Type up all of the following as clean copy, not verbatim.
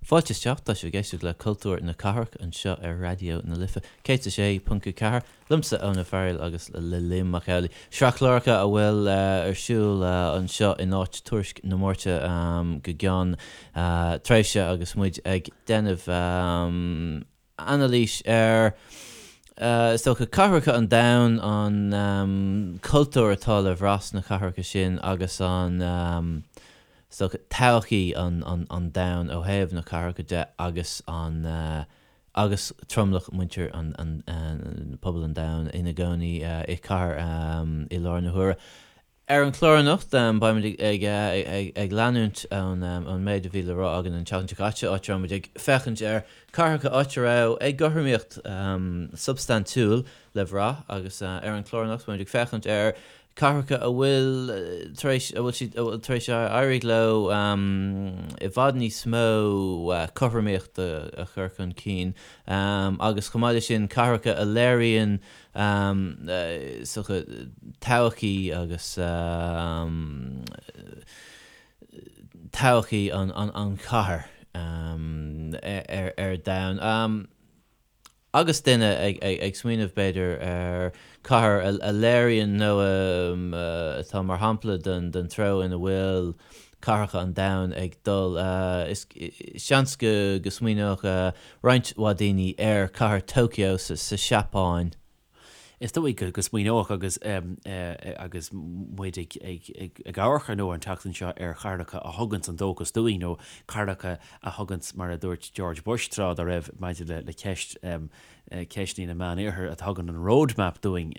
Fáilte isteach, tá sibh ag éisteacht le Cultúr na Cathrach anseo ar Raidió na Life 106.4, liomsa Eoin Ó Fearghail agus le Liam Mac Amhlaigh. Sraith cláracha a bhfuil ar siúl anseo in áit Tuairisc na Máirte go gceann tréimhse agus muid ag déanamh anailís ar, is dócha, cathracha an domhain, an cultúr atá le bhrath sna cathracha sin agus an, is dócha, todhchaí an domhain ó thaobh na cathracha de agus an, agus tromlach muintir an, pobal an domhain ina gcónaí i cathair i láthair na huaire. Ar an chlár anocht, beimid ag leanúint ón méid a bhí le rá againn an tseachtain seo caite, áit a raibh muid ag féachaint ar cathracha áit a raibh éagothromaíocht substaintiúil le bhrath agus ar an chlár anocht beimid ag féachaint ar cathracha a bhfuil tar éis, a bhfuil siad, a bhfuil tar éis éirí leo i bhfad níos mó cothromaíochta a chur chun cinn agus chomh maith leis sin cathracha a léiríonn is dócha, todhchaí agus todhchaí an chathair ar domhan. Agus duine ag smaoineamh, b'fhéidir, ar chathair a léiríonn nó atá mar shampla den treo ina bhfuil cathracha an domhain ag dul, is seans go smaoineodh roinnt mhaith daoine ar chathair Tokyo sa Seapáin. Is dóigh go smaoineodh agus agus muid ag ag amharc ar ndóigh an tseachtain seo ar chathracha a thuganns an dóchas dúinn nó cathracha a thuganns, mar a dúirt George Bush tráth dá raibh maidir le ceist ceisteanna na Meánoirthir, a thugann an roadmap dúinn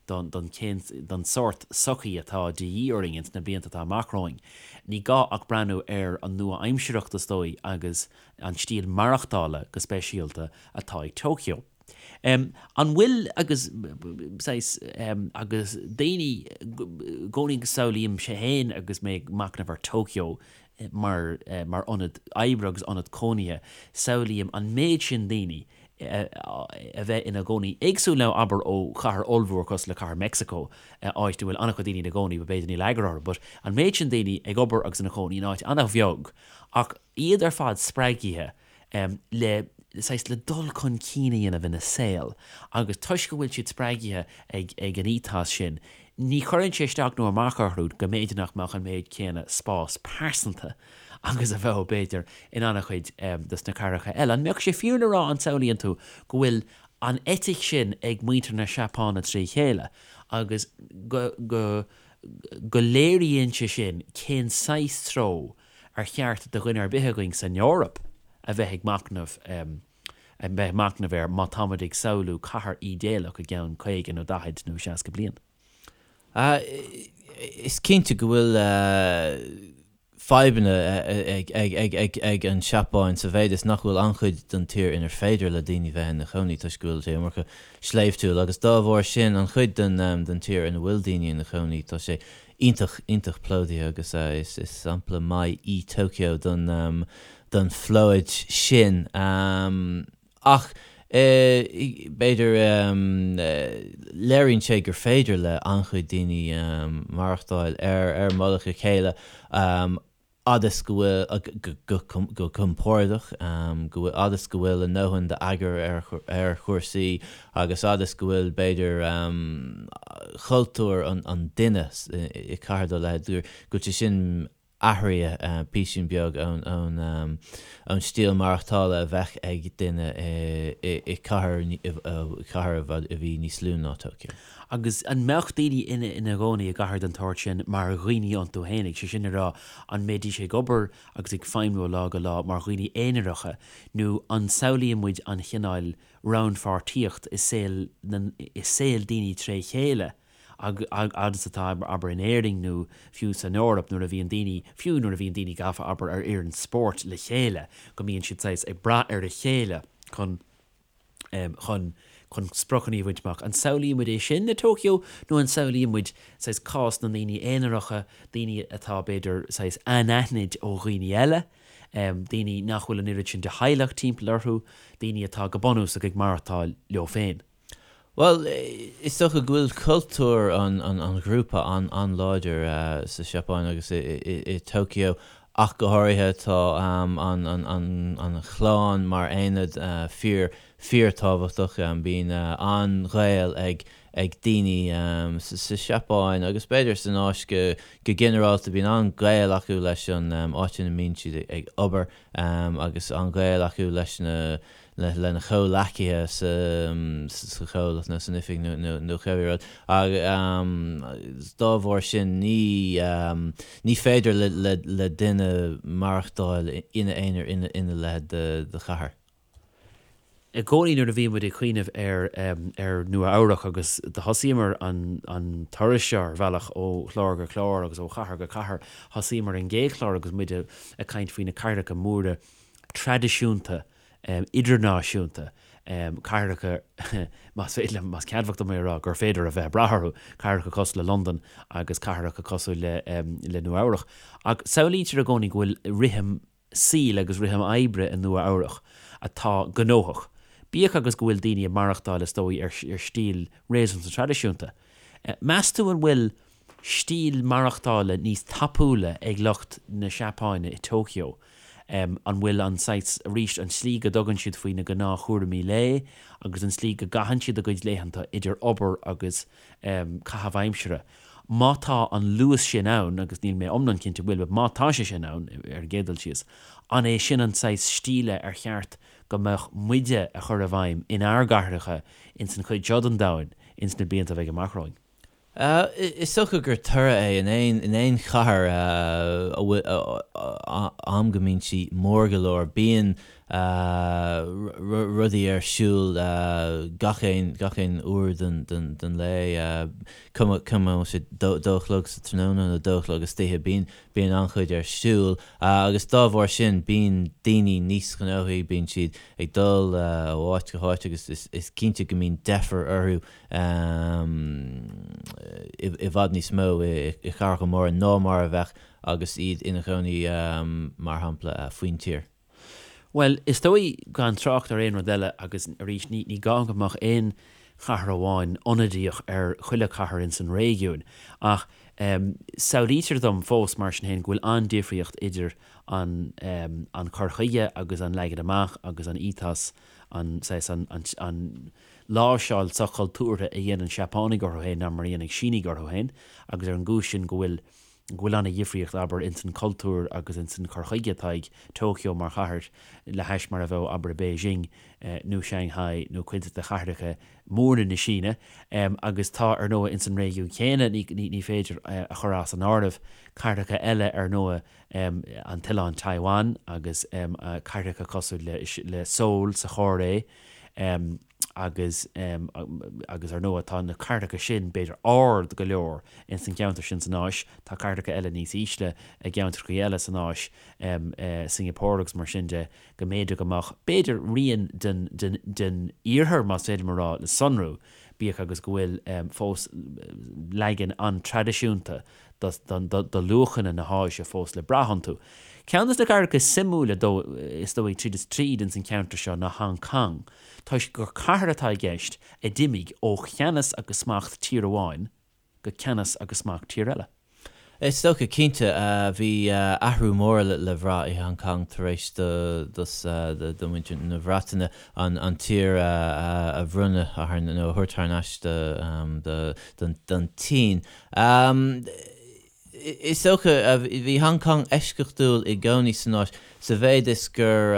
don don cén don sórt sochaí atá de dhíth orainn ins na blianta atá amach romhainn. Ní gá ach breathnú ar an nua-aimsearthacht is dóigh agus an stíl maireachtála go speisialta atá ag Tokyo. An bhfuil agus saghas agus daoine i gcónaí go samhlaímse féin agus mé ag machnamh ar Tokyo mar mar ionad oibre agus ionad cónaithe, samhlaím an méid sin daoine a bheith ina gcónaí éagsúil nó abair ó chathair ollmhór cosúil le cathair Mexico áit a bhfuil an-chuid daoine ina gcónaí but b'fhéidir níl eagar orthu but an méid sin daoine ag obair agus ina chónaí in áit an-bheag Ach iad ar fad spreagaithe le, saghas, le dul chun cinn a dhéanamh ina saol agus toisc go bhfuil siad spreagaithe ag, ag an ethos sin, ní chuireann sé isteach nó amach orthu go mb'fhéidir nach mbeadh an méid céanna spás pearsanta agus a bheadh, b'fhéidir, in an-chuid de na cathracha eile. An mbeadh sé fíor le rá, an samhlaíonn tú, go bhfuil an eitic sin ag muintir na Seapáine trí chéile agus go, go, go léiríonn sé sin cén saghas treo ar cheart do dhuine ar bith againn san Eoraip a bheith ag machnamh a bheith ag machnamh air má táimid ag samhlú cathair ídéalach i gceann 50 nó 40 nó 60 bliain. Is cinnte go bhfuil fadhbanna ag an Seapáin sa mhéid is nach bhfuil an-chuid den tír inar féidir le daoine bheith ina chónaí toisc go bhfuil sé iomarca sléibhtiúil agus dá bharr sin an chuid den tír ina bhfuil daoine ina chónaí tá sé iontach, iontach plódaithe agus is sampla maith í Tokyo don don phlóid sin. Ach b'fhéidir léiríonn sé gur féidir le an-chuid daoine maireachtáil ar ar mullach a chéile fhad is go bhfuil, go compordach, go bhfuil, fhad is go bhfuil a ndóthain d'eagar ar chúrsaí agus fhad is go bhfuil, b'fhéidir, cultúr an duine i cathair dá leithéid, go bhfuil sé sin athraithe písín beag ón stíl maireachtála a bheadh ag duine i cathair a bhí níos lú ná Tokyo. Agus an mbeadh daoine ina gcónaí i gcathair den tsórt sin mar dhaoine iontu fhéinig, sé sin le rá, an mbeidís ag obair agus ag feidhmiú ó lá go lá mar dhaoine aonaracha, nó an samhlaíonn muid an chineál rannpháirtíocht i saol na, i saol daoine tré chéile agus atá, abair, in Éirinn nó fiú san Eoraip nuair a bhíonn daoine, fiú nuair a bhíonn daoine gafa, abair, ar fhoireann spóirt le chéile, go mbíonn siad saghas ag brath ar a chéile chun. chun chun spriocanna a bhaint amach. An samhlaíonn muid é sin le Tokyo nó an samhlaíonn muid saghas cás na ndaoine aonaracha, daoine atá b'fhéidir saghas anaithnid ó dhaoine eile, daoine nach bhfuil an oiread sin de theaghlach timpeall orthu, daoine atá go bunúsach ag maireachtáil leo féin? Bhuel, is dócha go bhfuil cultúr an ghrúpa an-láidir sa Seapáin agus i Tokyo. Ach go háirithe tá an chlann mar aonad fíor, fíorthábhachtach. Bíonn an-ghaol ag ag daoine sa Seapáin agus b'fhéidir san Áis go ginearálta, bíonn an-ghaol acu leis an áit ina mbíonn siad ag obair agus an-ghaol acu leis na lena chomhleacaithe sa chomhlacht nó san oifig nó cibé rud. Agus dá bharr sin ní ní féidir le duine maireachtáil ina aonar ina leithéid de chathair. I gcónaí nuair a bhíonn muid ag cuimhneamh ar ar Nua Eabhrac agus do thosaíomar an an turas seo ar bhealach ó chlár go clár agus ó chathair go cathair, thosaíomar an gcéad chlár agus muid ag caint faoi na cathracha móra traidisiúnta idirnáisiúnta, cathracha, más féidir liom, más ceadmhach dom é a rá, gur féidir a bheith ag brath orthu, cathracha cosúil le Londain agus cathracha cosúil le le Nua Eabhrach. Ach samhlaítear i gcónaí go bhfuil rithim saoil agus rithim oibre i Nua Eabhrach atá gnóthach, bíodh agus go bhfuil daoine ag maireachtáil is dóigh ar stíl réasúnta traidisiúnta. Meas tú an bhfuil stíl maireachtála níos tapúla ag lucht na Seapáine i Tokyo? An bhfuil an saghas, arís, an tslí go dtugann siad faoi na gnáthchúraimí lae agus an tslí go gcaitheann siad a gcuid laethanta idir obair agus caitheamh aimsire, má tá an luas sin ann, agus níl mé iomlán cinnte bhfuil, but má tá sé sin ann, ar an gcéad dul síos, an é sin an saghas stíle ar cheart go mbeadh muide a chur i bhfeidhm inár gcathracha ins an chuid seo den domhan ins na blianta a bheidh amach romhainn? Is dócha gur toradh é in aon in aon chathair a bhfuil am go mbíonn sí mór go leor, bíonn rudaí ar siúl gach aon gach aon uair den den den lae, cuma cuma an bhfuil sé dó dó a chlog sa tráthnóna nó dó a chlog istoíche, bíonn bíonn an-chuid ar siúl agus dá bharr sin bíonn daoine níos gnóthaí, bíonn siad ag dul ó áit go háit agus is is cinnte go mbíonn deifir orthu i bhfad níos mó i gcathracha móra ná mar a bheadh agus iad ina gcónaí, mar shampla, faoin tír. Bhuel, is dóigh, gan trácht ar aon rud eile, agus arís, ní gá go mbeadh aon chathair amháin ionadaíoch ar chuile chathair ins an réigiún, ach samhlaítear dom fós, mar sin féin, go bhfuil an-difríocht idir an an cur chuige agus an leagan amach agus an ethos, an saghas, an, an, láimhseáil soch-chultúrtha a dhéanann Seapánaigh orthu féin ná mar a dhéanfaidh Sínigh orthu féin, agus ar an gcúis sin go bhfuil go bhfuil an-dhifríocht, abair, ins an cultúr agus ins an cur chuige atá ag Tokyo mar chathair le hais mar a bheadh, abair, i Beijing nó Shanghai nó cuid de chathracha móra na Síne. Agus tá, ar ndóigh, ins an réigiún céanna, ní ní féidir a chur as an áireamh, cathracha eile, ar ndóigh, an t-oileán Taiwan agus cathracha cosúil le le Seoul sa Chóiré, agus agus ar ndóigh tá na cathracha sin b'fhéidir ard go leor ins an gceantar sin san Áis, tá cathracha eile níos ísle i gceantracha eile san Áis, Singapore agus mar sin de, go mb'fhéidir go mbeadh b'fhéidir rian den den den iarthar más féidir liom a rá le sonrú, bíodh agus go bhfuil fós leagan an-traidisiúnta do luachanna na hÁise fós le brath iontu. Ceann de na cathracha is suimiúla is dóigh tríd is tríd ins an cheantar seo ná Hong Kong, toisc gur cathair atá i gceist a d'imigh ó cheannas agus smacht tír amháin go ceannas agus smacht tír eile. Is dócha, cinnte. Bhí athrú mór le bhrath i Hong Kong tar éis do mhuintir na Breataine an tír a bhronnadh nó a thabhairt thar n-ais don tSín. Is dócha, bhí Hong Kong eisceachtúil i gcónaí san Áis, sa mhéid is gur,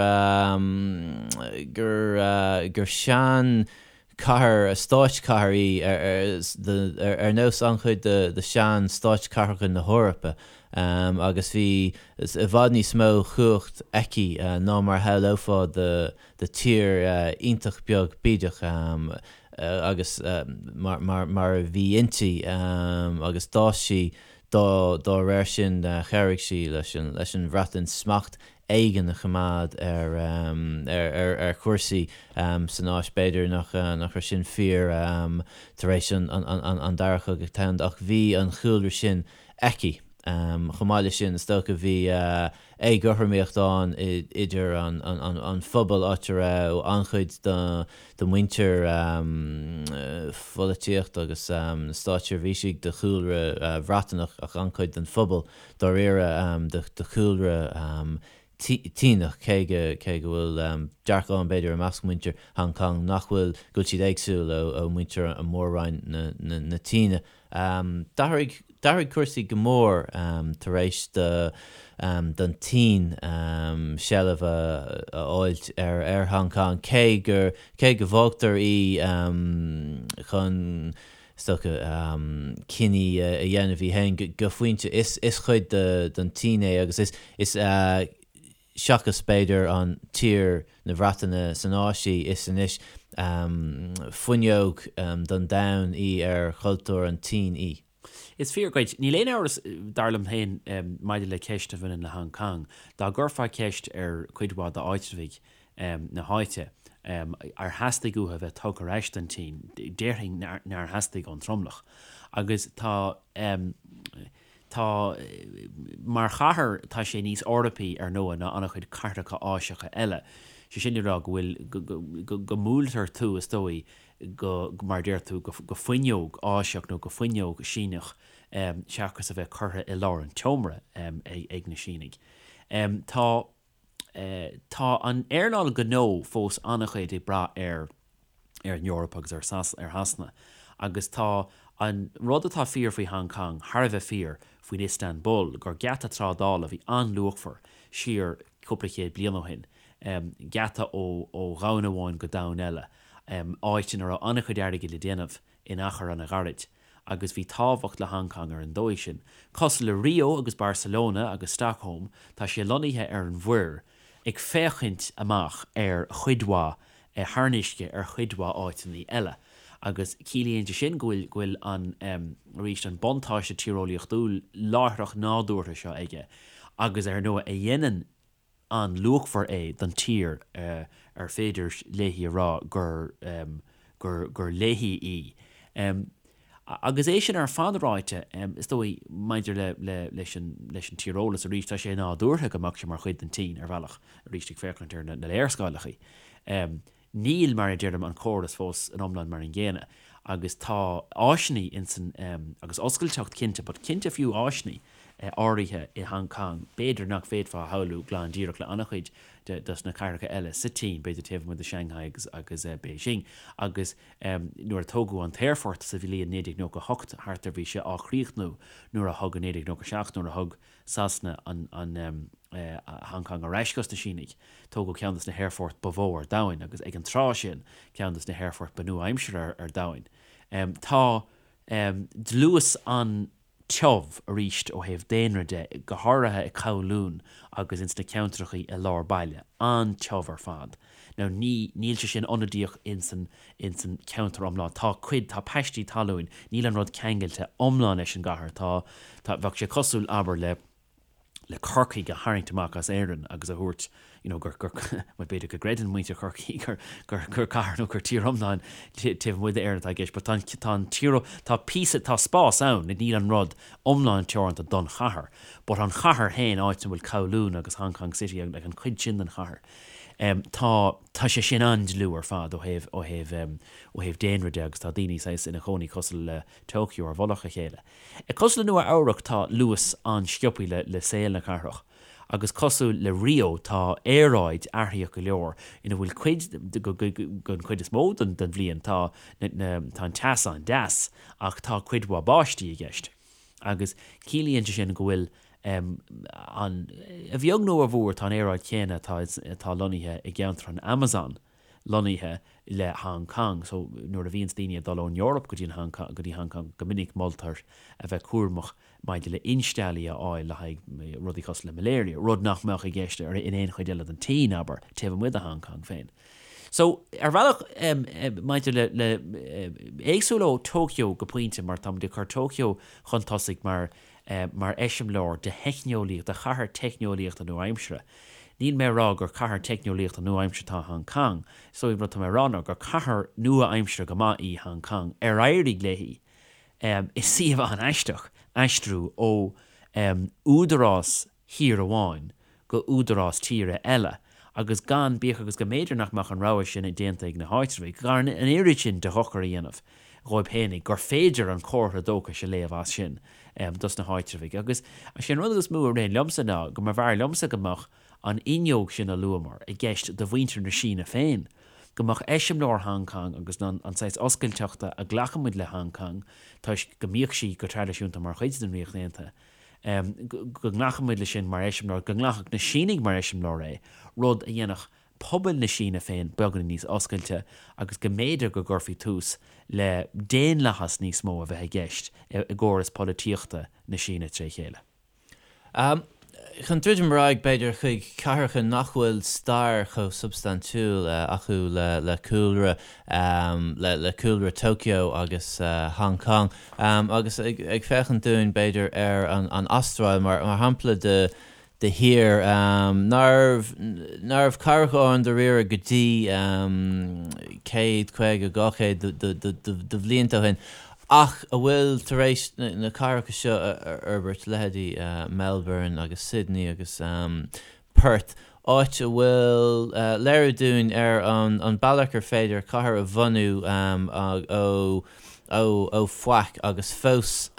gur, gur sean chathair, stáitchathair í, ar nós an-chuid de shean stáitchathracha na hEorpa, agus bhí i bhfad níos mó chumhacht aici ná mar a shamhlófá do tír iontach beag bídeach. agus mar a bhí inti agus d'fhás sí dá réir sin. Chabhraigh sí leis an Bhreatain smacht éigin a choimeád ar chúrsaí san Áis. B'fhéidir nach raibh sin fíor tar éis an Dara Cogadh Domhanda ach bhí an chúlra sin aici. Chomh maith leis sin, is dócha, bhí. éagothromaíocht ann idir an phobal áit a raibh an-chuid de mhuintir pholaitíocht agus na státseirbhísigh de chúlra Bhreataineach ach an-chuid den phobal dáiríre de chúlra tSíneach, cé go cé go bhfuil dearcadh ann b'fhéidir i measc muintir Hong Kong nach bhfuil, go bhfuil siad éagsúil ó mhuintir Mhór-Roinn na tSíne. D'athraigh d'athraigh cúrsaí go mór tar éis do don tSín seilbh a fháilt ar ar Hong Kong, cé gur cé go bhfágtar í chun is dócha, cinní a dhéanamh í féin go pointe. Is cuid den tSín é agus is, is seachas b'fhéidir an tír na Breataine san Áis í, is anois fuinneog don domhan í ar chultúr an tSín í. Is fíor dhuit. Níl aon amhras, dar liom féin, maidir le ceist a bhaineann le Hong Kong. Dá gcuirfeá ceist ar chuid mhaith d'áitreabhaigh na háite, ar theastaigh uathu a bheith tugtha ar ais don tSín, déarfainn nár theastaigh ón tromlach. Agus tá, tá, mar chathair, tá sé níos Eorpaí, ar ndóigh, ná an-chuid cathracha Áiseacha eile. Sé sin le rá go bhfuil, go, go mbuailtear tú, is dóigh, go, mar a deir tú, go fuinneog Áiseach nó go fuinneog Síneach seachas a bheith curtha i lár an tseomra ag na Sínigh. Tá. Tá an earnáil gnó fós an-chuid ag brath ar ar an Eoraip agus ar ar Shasana agus tá an rud atá fíor faoi Hong Kong thar a bheith fíor faoin Istanbul, gur geata trádála a bhí an-luachmhar siar cúpla chéad bliain ó shin, geata ó ó dhomhan amháin go domhan eile, áit ina raibh an-chuid airgid le déanamh in achar an-ghairid. agus bhí tábhacht le Hong Kong ar an dóigh sin. Cosúil le Rio agus Barcelona agus Stockholm, tá sé lonnaithe ar an mhuir, ag féachaint amach ar chuid mhaith thar an uisce ar chuid mhaith áiteanna eile. Agus ciallaíonn sé sin go bhfuil go bhfuil an, arís, an buntáiste tíreolaíochtúil láithreach nádúrtha seo aige agus ar ndóigh a dhéanann an-luachmhar é don tír ar féidir léi a rá gur gur gur léi í. Agus é sin ar fad ráite, is dóigh, maidir le le leis an leis an tíreolas arís, tá sé nádúrtha go mbeadh sé mar chuid den tSín, ar bhealach, arís ag féachaint ar na na léarscáileacha. Níl, mar a deirim, an córas fós in iomlán mar an gcéanna agus tá áiseanna insan, agus oscailteacht cinnte, but cinnte fiú áiseanna áirithe i Hong Kong, b'fhéidir nach bhféadfá a shamhlú glan díreach le an-chuid de dos na cathracha eile sa tSín, b'fhéidir taobh amuigh de Shanghai agus agus Beijing. Agus nuair a tógadh an t-aerfort sa bhliain 1998 thart ar bhí sé á chríochnú nuair a thug i 1997 nuair a thug Sasana an an Hong Kong ar ais dos na Sínigh. Tógadh ceann dos na haerfoirt ba mhó ar domhain agus ag an tráth sin ceann dos na haerfoirt ba nua-aimseartha ar domhain. Tá dlús an-tiubh arís ó thaobh daonra de, go háirithe i Kowloon agus ins na ceantrachaí i lár baile, an-tiubh ar fad. Now ní, níl sé sin ionadaíoch ins an, ins an cheantar iomlán. Tá cuid, tá paistí talúin, níl an rud ceangailte iomlán leis an gcathair. Tá, tá, bheadh sé cosúil, abair, le, le Corcaigh a tharraingt amach as Éirinn agus a thabhairt, you know, gur, gur, bhuel b'fhéidir go gcreideann muintir Chorcaí gur, gur, gur cathair nó gur tír iomlán taobh amuigh d'Éirinn atá i gceist, but tá an, tá an tír, tá píosa, tá spás ann, níl an rud iomlán teoranta don chathair, but an chathair féin, áit a bhfuil Kowloon agus Hong Kong City agus like an chuid sin den chathair, Tá, tá sé sin an-dlúth ar fad ó thaobh, ó thaobh, ó thaobh daonra de agus tá daoine saghas ina chónaí cosúil le Tokyo ar mhullach a chéile. Cosúil le Nua Eabhrac tá luas an-sciobthaí le, le saol na cathrach agus cosúil le Rio tá aeráid athraitheach go leor ina bhfuil cuid, go, go, go, don chuid is mó den, den bhliain tá na, na, tá an teas an-deas ach tá cuid mhaith báistí i gceist agus ciallaíonn sé sin go bhfuil an, a bheag nó a mhór, tá an aeráid chéanna atá, atá lonnaithe i gceantar an Amazon lonnaithe le Hong Kong. So, nuair a bhíonns daoine ag dul ón Eoraip go dtí an Hong Kong, go dtí Hong Kong, go minic moltar a bheith cúramach maidir le insteallaí a fháil le haghaidh rudaí cosúil le malaria, rud nach mbeadh i gceist ar, in aon chuid eile den tSín, abair, taobh amuigh de Hong Kong féin. So, ar bhealach, maidir le, le, éagsúil ó Tokyo go pointe, mar táimid ag cur Tokyo chun tosaigh mar mar eiseamláir de theicneolaíocht, de chathair teicneolaíochta nua-aimseartha. Níl mé ag rá gur cathair teicneolaíochta nua-aimseartha atá i Hong Kong. Is dóigh an rud atá mé ag rá ná gur cathair nua-aimseartha go maith í Hong Kong ar éirigh léi i suíomh an-aisteach aistriú ó údarás thír amháin. go údarás tíre eile agus gan, bíodh agus go mb'fhéidir nach mbeadh an rogha sin déanta ag na háitreabhaigh, gan an oiread sin de dhochar a dhéanamh dhóibh fhéinig, gur féidir an comhartha dóchais a léamh as sin dos na háitreabhaigh. Agus sé an rud is mó a ritheann liomsa ná go mb'fhearr liomsa go mbeadh an fhuinneog sin a luamar i gceist do mhuintir na Síne féin, go mbeadh eiseamláir Hong Kong agus an saghas oscailteachta a ghlacann muid le Hong Kong toisc go mbíodh sí go traidisiúnta mar chuid den Ríocht Aontaithe, go nglacfaidh muid leis sin mar eiseamláir, go nglacfadh na Sínigh mar eiseamláir é, rud a dhéanfadh pobail na Síne féin beagáinín níos oscailte agus go mb'fhéidir go gcuirfí tús le daonlathas níos mó a bheith i gceist i gcóras polaitíochta na Síne tré chéile. Chun druidim ar aghaidh, b'fhéidir, chuig cathracha nach bhfuil stair chomh substaintiúil acu le cúlra le cúlra Tokyo agus Hong Kong, agus ag féachaint dúinn, b'fhéidir, ar an Astráil mar shampla de de thír nárbh nárbh cathrach ann dáiríre go dtí 100, 50, 200 de bhlianta ó shin. Ach a bhfuil tar éis na cathracha seo a fhorbairt, leithéidí Melbourne agus Sydney agus Perth, áit a bhfuil léiriú dúinn ar an bealach ar féidir cathair a bhunú ó faic agus fós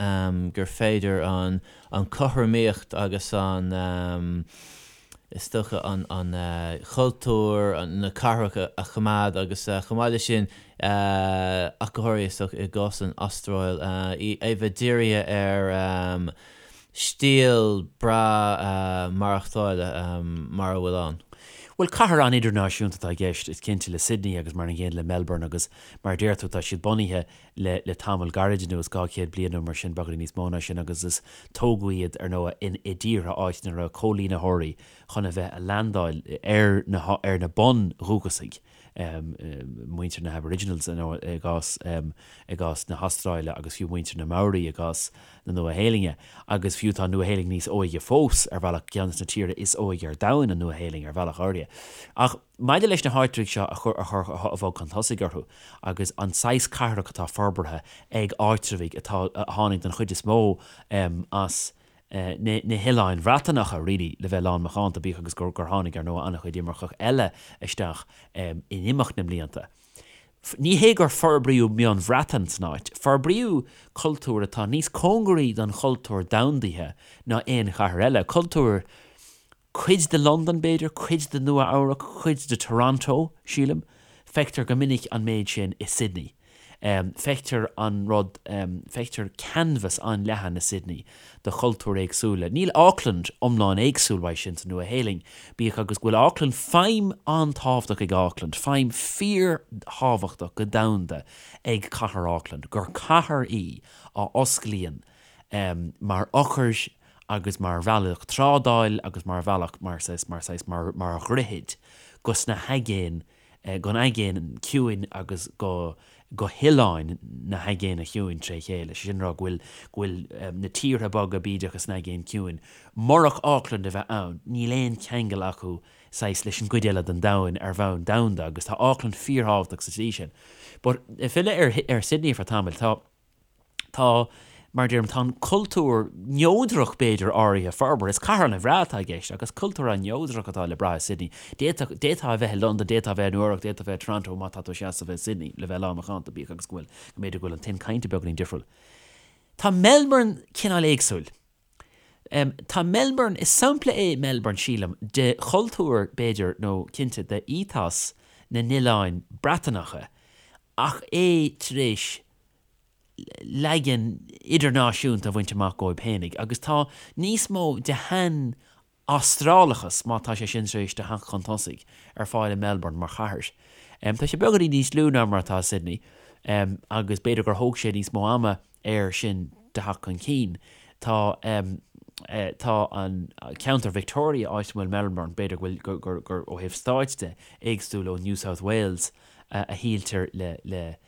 gur féidir an chothromaíocht agus an is dócha, an cultúr na cathrach a choimeád agus chomh maith leis sin, ach go háirithe is dócha i gcás an Astráil, é a bheith dírithe ar stíl breá maireachtála mar a bhfuil ann. Bhuel, cathair an-idirnáisiúnta atá i gceist, is cinnte, le Sydney agus mar an gcéanna le Melbourne agus mar a deir tú, tá siad bunaithe le le tamall gairid anuas, 200 bliain nó mar sin, beagáinín níos mó ná sin, agus is tógadh iad, ar ndóigh, in i dtíortha áit ina raibh coilínitheoirí chun a bheith a leaindeáil ar na ar na bun-dhúchasaigh, muintir na hAboriginals, ar ndóigh, i gcás i gcás na hAstráile agus fiú muintir na Maori i gcás na Nua-Shéalainne. Agus fiú tá an Nua-Shéalainn níos óige fós, ar bhealach, ceann de na tíortha is óige ar domhan, an Nua-Shéalainn, ar bhealach áirithe. Ach. Maidir leis na háitreabhaigh seo a chur a chur a bhog chun tosaigh orthu agus an saghas cathrach atá forbartha ag áitreabhaigh atá a tháinig den chuid is mó as na na hoileáin Bhreatanacha really le bheith lán macánta bíodh agus gur gur tháinig ar ndóigh an-chuid imirceach eile isteach in imeacht na mblianta. Ní hé gur forbraíodh meon Bhreatain san áit, forbraíodh cultúr atá níos cóngaraí don chultúr domhandaithe ná aon chathair eile, cultúr Cuid de Londain, b'fhéidir, cuid de Nua Eabhrac, cuid de Toronto, sílim. Feictear go minic an méid sin i Sydney. Feictear an rud, feictear canvas an-leathan i Sydney de chultúir éagsúla. Níl Auckland iomlán éagsúil uaidh sin sa Nua-Shéalainn, bíodh agus go bhfuil Auckland, feidhm an-tábhachtach ag Auckland, feidhm fíor-thábhachtach go domhanda ag cathair Auckland, gur cathair í a osclaíonn mar eochair agus mar bhealach trádáil agus mar bhealach mar saghas mar saghas mar mar dhroichid go sna haigéin gon aigéan ciúin agus go go hoileáin na haigéine chiúin tré chéile. Sé sin a rá go bhfuil go bhfuil na tíortha beaga bídeacha san aigéan ciúin, murach Auckland a bheith ann, níl aon cheangal acu saghas leis an gcuid eile den domhan ar bhonn domhanda agus tá Auckland fíorthábhachtach sa tslí sin. But ag filleadh ar ar Sydney ar feadh tamaill, tá Tá, mar a deirim, tá an cultúr neodrach, b'fhéidir, áirithe forbartha. Is cathair an-bhreá atá i gceist agus cultúr an-neodrach atá le brath i Sydney. D'fhéadfadh, d'fhéadfá a bheith i Londain, d'fhéadfá a bheith i Nua Eabhrac, d'fhéadfá a bheith i Toronto má tá tú ag seasamh i Sydney, le bheith lán macánta, bíodh agus go bhfuil, go mb'fhéidir go bhfuil an tuin cainte beagáinín difriúil. Tá Melbourne cineál éagsúil. Tá Melbourne, is sampla é Melbourne, sílim, de chultúr, b'fhéidir, nó cinnte de ethos na n-oileáin Breatanacha ach é tar éis leagan idirnáisiúnta a bhaint amach dhóibh fhéinig agus tá níos mó de shean-Astrálachas, má tá sé sin tar éis do theacht chun tosaigh, ar fáil i Melbourne mar chathair. Tá sé beagáinín níos lú ná mar atá Sydney agus b'fhéidir gur thóg sé níos mó ama air sin do theacht chun cinn. Tá tá an ceantar Victoria, áit a bhfuil Melbourne, b'fhéidir go bhfuil gur gur ó thaobh stáit de, éagsúil ó New South Wales a shíltear le le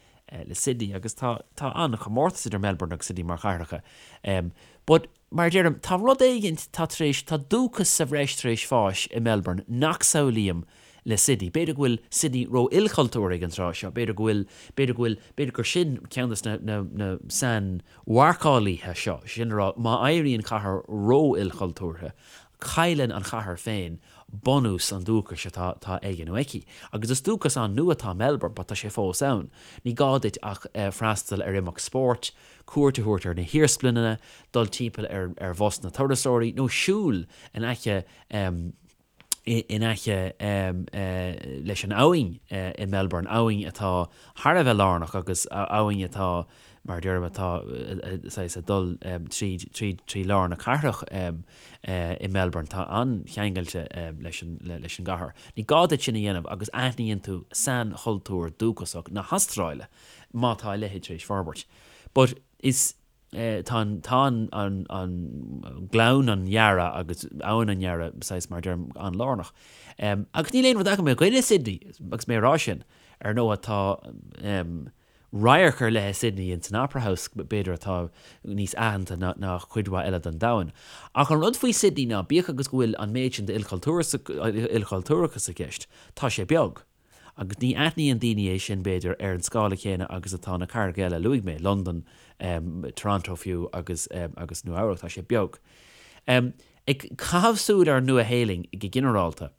le Sydney agus tá tá an-chomórtas idir Melbourne agus Sydney mar chathracha. But mar a deirim, tá rud éigint, tá tar éis, tá dúchas sa bhreis tar éis fáis i Melbourne nach samhlaím le Sydney. B'fhéidir go bhfuil Sydney ró-ilchultúrtha ag an tráth seo, b'fhéidir go bhfuil, b'fhéidir go bhfuil, b'fhéidir gur sin ceann de na, na sainmharcálaithe seo, sin a rá, má éiríonn cathair ró-ilchultúrtha. Cailleann an chathair féin bunús an dúchais atá atá aige nó aici. Agus is dúchas an-nua atá Melbourne but tá sé fós ann. Ní gá duit ach freastal ar imeacht spóirt, cuairt a thabhairt ar na hiarsmalanna, dul timpeall ar ar bhus na turasóirí nó siúl in aice in aice leis an abhainn i Melbourne, abhainn atá thar a bheith lárnach agus abhainn atá, mar a deirim, atá saghas ag dul tríd, tríd, trí lár na cathrach i Melbourne. Tá an-cheangailte leis an, leis an gcathair. Ní gá duit sin a dhéanamh agus aithníonn tú sainchultúr dúchasach na hAstráile, má tá a leithéid tar éis forbairt. But is. Tá an, tá an, an, an Gleann an Yarra agus Abhainn an Yarra, saghas, mar a deirim, an-lárnach. Agus níl aon rud agam i gcoinne Sydney, agus mé ag rá sin. Ar ndóigh, tá radharc ar leith i Sydney ins an Opera House, b'fhéidir, atá níos aitheanta ná, ná cuid mhaith eile den domhan. Ach an rud faoi Sydney ná, bíodh agus go bhfuil an méid sin d'ilchultúrachas i gceist, tá sé beag. Agus ní aithníonn daoine é sin, b'fhéidir, ar an scála céanna agus atá na cathracha eile a luaigh mé, Londain, Toronto fiú agus agus Nua Eabhrac, tá sé beag. Ag caitheamh súil ar an Nua-Shéalainn go ginearálta,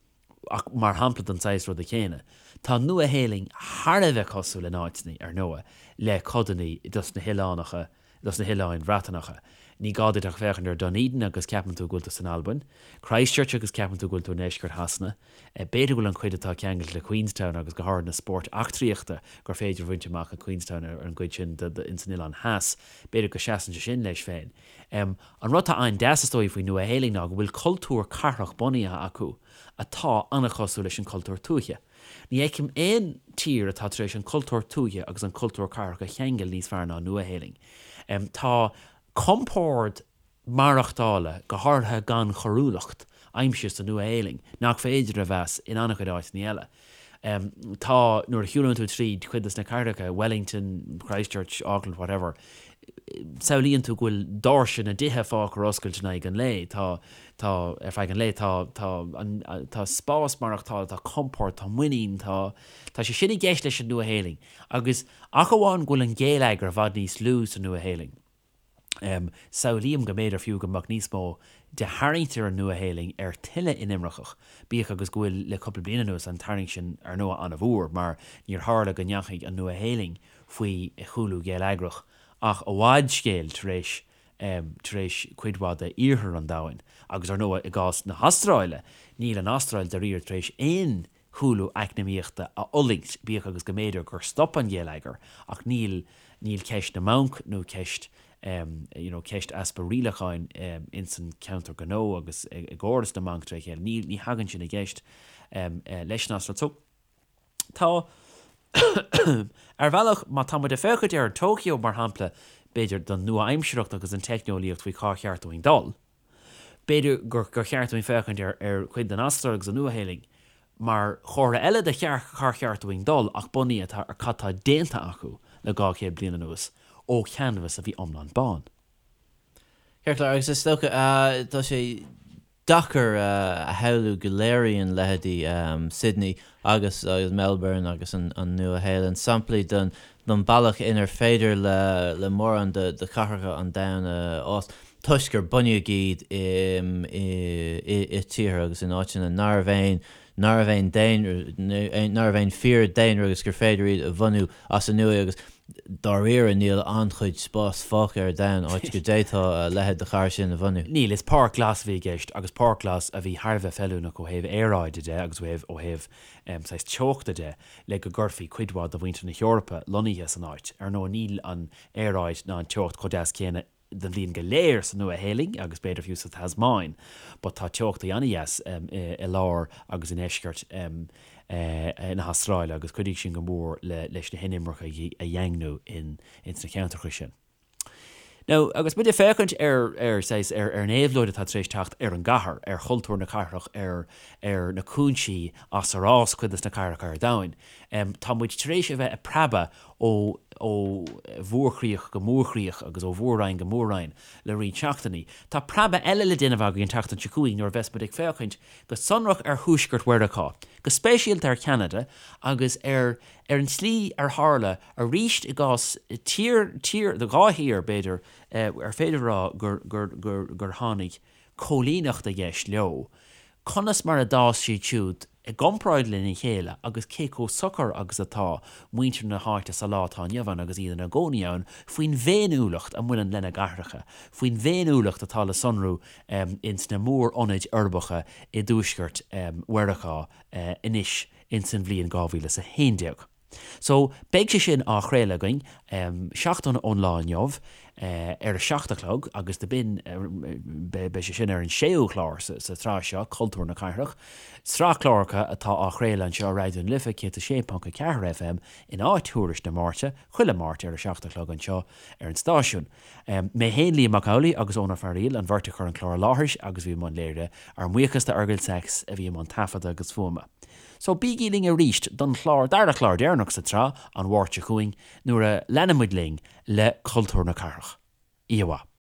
ach mar shampla den saghas ruda céanna, tá an Nua-Shéalainn thar a bheith cosúil in áiteanna, ar ndóigh, le codanna dos na hoileánacha dos na hOileáin Bhreatanacha. Ní gá duit ach féachaint ar Dunedin agus ceapann tú go bhfuil tú san Albain, Christchurch agus ceapann tú go bhfuil tú i ndeisceart Shasana. B'fhéidir go bhfuil an chuid atá ceangailte le Queenstown agus go háirithe na spóirt eachtraíochta gur féidir a bhaint amach i Queenstown ar an gcuid sin ins an Oileán Theas, b'fhéidir go seasann sé sin leis féin. An rud atá an-deas is dóigh faoin Nua-Shéalainn ná go bhfuil cultúr cathrach bunaithe acu atá an-chosúil leis an cultúr tuaithe. Ní fheicim aon tír atá tar éis an cultúr tuaithe agus an cultúr cathrach a cheangal níos fearr ná an Nua-Shéalainn. Tá compord maireachtála, go háirithe gan choiriúlacht, aimsithe sa Nua-Shéalainn nach féidir a mheas in an-chuid áiteanna eile. Tá, nuair a shiúlann tú tríd cuid de na cathracha, Wellington, Christchurch, Auckland, whatever, samhlaíonn tú go bhfuil doirse na dtithe fágtha ar oscailt in aghaidh an lae. Tá, tá, ar feadh an lae, tá, tá an, tá spás maireachtála, tá compord, tá muinín, tá, tá sé sin i gceist leis an Nua-Shéalainn. Agus ach amháin go bhfuil an géilleagar i bhfad níos lú sa Nua-Shéalainn, samhlaím go mb'fhéidir fiú go mbeadh níos mó de tharraingt ar an Nua-Shéalainn ar tuilleadh inimirceach, bíodh agus go bhfuil le cúpla bliain anuas an tarraingt sin ar ndóigh an-mhór mar níor tharla go ndeachaigh an Nua-Shéalainn faoi chúlú geilleagrach ach i bhfad scéil tar éis tar éis cuid mhaith de iarthar an domhain agus ar ndóigh i gcás na hAstráile níl an Astráil dáiríre tar éis aon chúlú eacnamaíochta a fhulaingt bíodh agus go mb'fhéidir gur stop an geilleagar ach níl níl ceist na mbanc nó ceist you know ceist easpa rialacháin ins an ceantar gnó agus i gcóras na mbanc tré chéile níl ní thagann sin i gceist leis an Astráil so Tá. Ar bhealach, má tá muid ag féachaint ar an Tokyo, mar shampla, b'fhéidir, don nua-aimsearthacht agus an teicneolaíocht faoi cá cheart dúinn dul, b'fhéidir gur gur cheart dúinn féachaint ar ar chuid den Astráil agus an Nua-Shéalainn mar chomhartha eile de chár cheart dúinn dul ach bunaithe ar cad tá déanta acu le 200 bliain anuas ó chanvas a bhí iomlán bán. Ceart go leor, agus is dócha, tá sé deacair a shamhlú go léiríonn leithéidí Sydney agus agus Melbourne agus an Nua-Shéalainn samplaí den bealach inar féidir le mórán de chathracha an domhain a fhás toisc gur bunaíodh iad i tíortha agus in áiteanna nárbh aon nárbh aon daonra nárbh aon fíor-daonra agus gur féidir iad a bhunú as an nua agus Dáiríre, níl an-chuid spáis fágtha ar domhan áit go d'fhéadfá a leithéid de chathair sin a bhunú. Níl, is páirc ghlas a bhí i gceist agus páirc ghlas a bhí thar a bheith feiliúnach ó thaobh aeráide de agus ó thaobh ó thaobh saghas teochta de le go gcuirfí cuid mhaith de mhuintir na hEorpa lonnaithe san áit. Ar ndóigh níl an aeráid ná an teocht chomh deas céanna den bhliain go léir sa Nua-Shéalainn agus b'fhéidir fiú sa Tasmáin but tá teochtaí an-dheas i lár agus i ndeisceart na hAstráile agus chuidigh sin go mór leis na hinimircigh a dhaingniú ins na ceantracha sin. Now agus muid ag féachaint ar ar saghas ar ar an éabhlóid atá tar éis teacht ar an gcathair, ar chultúr na cathrach, ar ar na cúinsí as ar fhás cuid des na cathracha ar domhain, tá muid tar éis a bheith ag preabadh ó ó mhórchríoch go mórchríoch agus ó mhór-roinn go mór-roinn le roinnt seachtainí. Tá preabadh eile le déanamh againn an tseachtain seo chugainn nuair a bheas muid ag féachaint go sonrach ar thuaisceart Mheiriceá, go speisialta ar Cheanada agus ar ar an tslí ar tharla arís i gcás tír, tír, dhá thír b'fhéidir, ar féidir a rá gur gur gur gur tháinig. cóilíneacht i gceist leo, conas mar a d'fhás siad siúd i gcomparáid lena chéile agus cé chomh socair agus atá muintir na háite sa lá atá inniu ann agus iad ina gcónaí ann faoin bhféiniúlacht a mbaineann lena gcathracha, faoin bhféiniúlacht atá le sonrú ins na mór-ionaid uirbeacha i dtuaisceart Mheiriceá anois ins an bhliain 2011. So, beidh sé sin á chraoladh againn seachtain ón lá inniu ar a 7 a chlog agus do b'in, beidh sé sin ar an séú chlár sa tsraith seo, Cultúr na Cathrach, sraith cláracha atá á chraoladh anseo ar Raidió na Life 106.4 FM in áit Thuairisc na Máirte, chuile Máirt ar a 7 a chlog anseo ar an stáisiún. Mé féin, Liam Mac Amhlaigh agus Eoin Ó Fearaíl, an bheirt a chuir an clár i láthair agus a bhí i mbun léirithe. Ár mbuíochas do Fheargal Sachs a bhí i mbun taifeadta agus fuaime. So bígí linn arís don chlár, dara chlár deireanach sa tsraith, an Mháirt seo chugainn, nuair a leanfaidh muid linn le cultúr na cathrach. Oíche mhaith.